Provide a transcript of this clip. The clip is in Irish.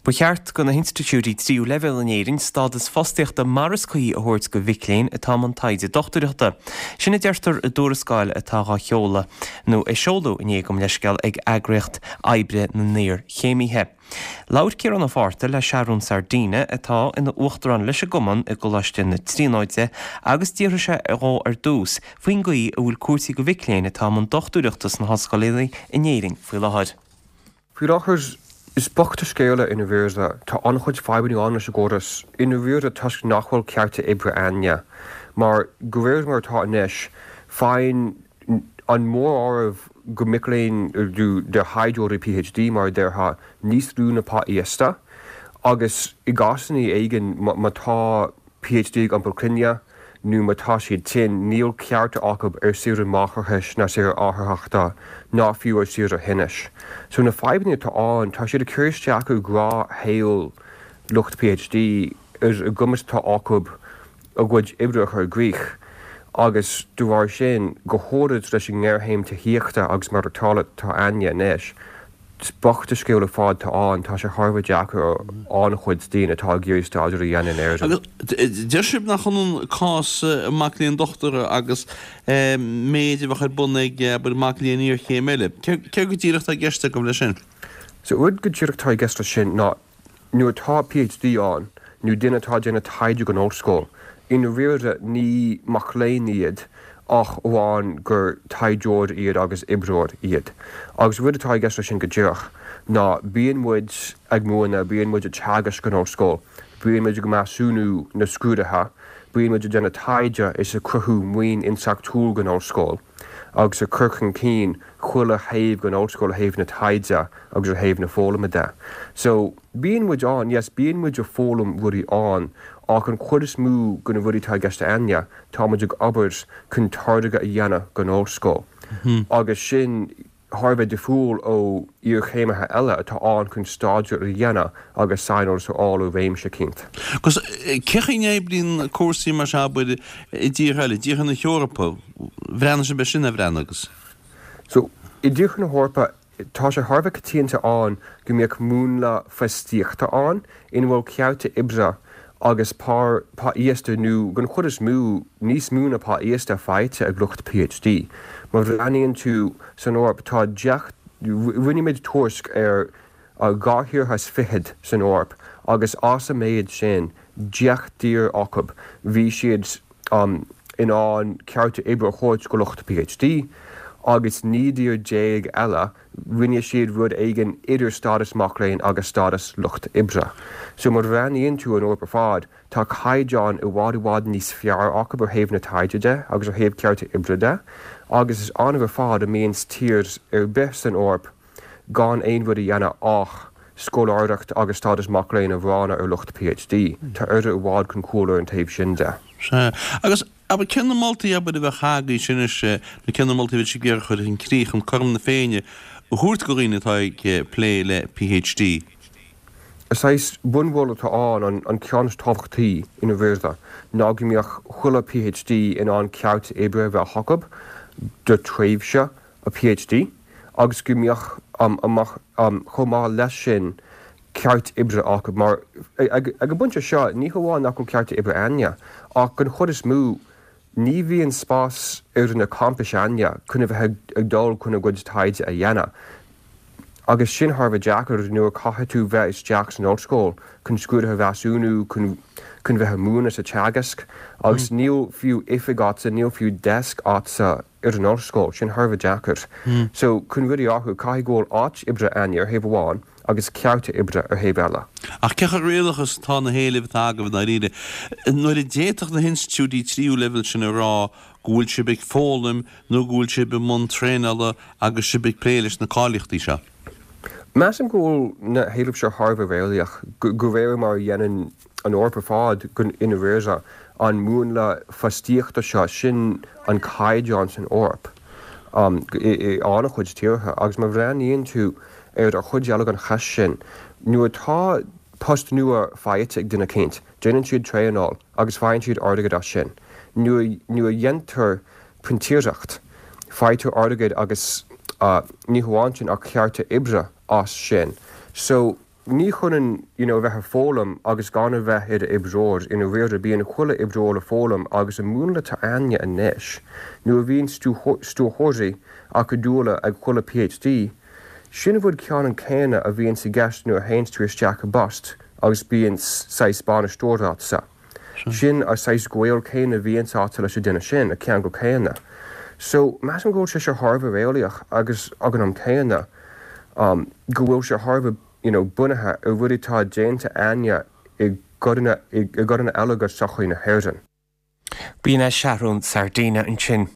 Ba cheart do na hinstitiúidí tríú leibhéal in Éirinn stádas fostaíochta mar is cuí a thabhairt do mhic léinn atá i mbun taighde dochtúireachta. Sin a deirtear i dtuarascáil atá dhá sheoladh, nó a seoladh inné, gabh mo leithscéal, ag Eagraíocht Oibre na nIarchéimithe. Labhair Ciarán Ó Fátharta le Seathrún Sardina, atá ina uachtarán leis an gcumann i gColáiste na Tríonóide, agus d'fhiafraigh sé dhó ar dtús faoin gcaoi a bhfuil cúrsaí do mhic léinn atá i mbun dochtúireachta sna hollscoileanna in Éirinn faoi láthair. Faoi láthair, is bocht an scéal é i ndáiríre. Tá an-chuid fadhbanna ann leis an gcóras i ndáiríre toisc nach bhfuil cearta oibre a'inne. Mar, de réir mar atá anois, faigheann an móráireamh de mhic léinn, de thaighdeoirí PhD mar a déarfá, níos lú na pá íosta agus i gcásanna éigin má tá PhD ag iompar clainne nó má tá siad tinn, níl cearta acu ar saoire máithreachais ná saoire atharthachta ná fiú ar saoire thinnis. So na fadhbanna atá ann, tá siad ag cur isteach ar ghnáthshaol lucht PhD, ar an gcumas atá acu a gcuid oibre a chur i gcrích agus de bharr sin, go háirid leis an ngéarchéim tithíochta agus maireachtála atá a'inne anois, Is bocht an scéal ar fad atá ann, tá sé thar a bheith deacair ar an-chuid daoine atá ag iarraidh staidéar a dhéanamh in Éirinn. Agus deir sibh nach ionann cás mac léinn dochtúra agus méid a bheadh ar bun ag, abair, mac léinn iarchéime eile. Céard go díreach atá i gceist agaibh leis sin? So rud go díreach atá i gceist leis sin ná Nuair atá PhD ann, nó duine atá ag déanamh taighde don ollscoil, i ndáiríre ní mac léinn iad ach amháin gur taighdeoir iad agus oibreoir iad. Agus rud atá i gceist leis sin go díreach ná bíonn muid ag múineadh, bíonn muid ag teagasc san ollscoil, bíonn muid ag measúnú na scrúduithe, bíonn muid ag déanamh taighde is ag cruthú maoin intleachtúil don ollscoil. agus ag cur chun cinn chuile thaobh den ollscoil ó thaobh na taighde agus ó thaobh na foghlama de. So, bíonn muid ann, yes, bíonn muid ag foghlaim rudaí ann ach an chuid is mó de na rudaí atá i gceist a'inne, tá muid ag obair chun táirge a dhéanamh don ollscoil agus sin thar a bheith difriúil ó iarchéimithe eile atá ann chun staidéar a dhéanamh agus saineolas a fháil i réimse eicínt. Agus cén chaoi a n-oibríonn cúrsaí mar seo, abair, i dtíortha eile, i dtíortha na hEorpa? Bhreathnaigh sibh air sin, ar bhreathnaigh agus? So, i dtíortha na hEorpa, tá sé thar a bheith coitianta ann go mbeadh múnla fostaíochta ann ina bhfuil cearta oibre agus pá íosta nó, den chuid is mó, níos mó ná pá íosta faighte ag lucht PhD. Má bhreathnaíonn tú san Eoraip, tá 10, rinne muid tuairisc ar 22 thíortha san Eoraip agus as an méid sin, 10 dtír acu, bhí siad in ann cearta oibre a thabhairt go lucht PhD agus 19 dtír eile, rinne siad rud éigin idir stádas mac léinn agus stádas lucht oibre. So má bhreathnaíonn tú an Eoraip ar fad, tá caighdeán i bhfad i bhfad níos fearr acu ó thaobh na taighde de agus ó thaobh cearta oibre de agus is annamh ar fad a mbíonn tír ar bith san Eoraip gan aon rud a dhéanamh ach scoláireacht agus stádas mac léinn a bhronnadh ar lucht PhD. Tá Éire i bhfad chun cúil ar an taobh sin de. Sea. Agus, abair, cé na moltaí, abair, a bheadh agaibhse anois, nó cé na moltaí a bheadh sibh ag iarraidh a chur chun críche chun cothrom na Féinne a thabhairt do dhaoine atá ag plé le PhD? Saghas bunmholadh atá ann, an ceann is tábhachtaí i ndáiríre, ná go mbeadh chuile PhD in ann cearta oibre a bheith acu do tréimhse a PhD agus go mbeadh chomh maith leis sin ceart oibre acu mar ag an bpointe seo ní hamháin nach bhfuil cearta oibre a'inne ach den chuid is mó ní bhíonn spás ar na campais a'inne chun a bheith ag dul chun a gcuid taighde a dhéanamh agus sin thar a bheith deacair nuair a caithfidh tú bheith isteach san ollscoil chun scrúduithe a mheasúnú chun chun bheith ag múineadh is ag teagasc agus níl fiú oifig a'dsa níl fiú desk a'dsa ar an ollscoil, sin thar a bheith deacair. So, chun rudaí a athrú, caithfidh go bhfuil áit oibre a'inne ar thaobh amháin agus cearta oibre ar thaobh eile. Ach cé chomh réalaíoch is atá na héilimh atá agaibh i ndáiríre, nuair a d'fhéadfadh na hinstitiúidí tríú leibhéal sin a rá go bhfuil sibh ag foghlaim nó go bhfuil sibh i mbun traenála agus sibh ag plé leis na cáilíochtaí seo? Measaim go bhfuil na héilimh seo thar a bheith réalaíoch, de réir mar a dhéanann an Eoraip ar fad i ndáiríre, an múnla fostaíochta seo, sin an caighdeán san Eoraip i an-chuid tíortha. Agus má bhreathnaíonn tú ar an chuid eile den cheist sin, nuair atá post nua faighte ag duine eicínt, déanann siad traenáil agus faigheann siad airgead as sin. Nuair a dhéantar printíreacht, faightear airgead agus ní hamháin sin ach cearta oibre as sin. So. Ní hionann you know a bheith ag foghlaim agus gan a bheith i d'oibreoir, i ndáiríre bíonn chuile oibreoir ag foghlaim agus an múnla atá a'inne anois, nuair a bhíonn stiúrthóirí acadúla ag chuile PhD, sin an rud ceannann céanna a bhíonns i gceist nuair a théanns tú isteach i bpost agus bíonn saghas bainisteoir a'dsa. Sin an saghas gaol céanna a bhíonns a'dsa leis an duine sin, an ceangal céanna. So, measaim go bhfuil sé seo thar a bheith réalaíoch agus ag an am céanna go bhfuil sé thar a bheith you know bunaithe ar rudaí atá déanta a'inne i gcodanna i gcodanna eile de sochaí na hÉireann. B'in é Seathrún Sardina ansin.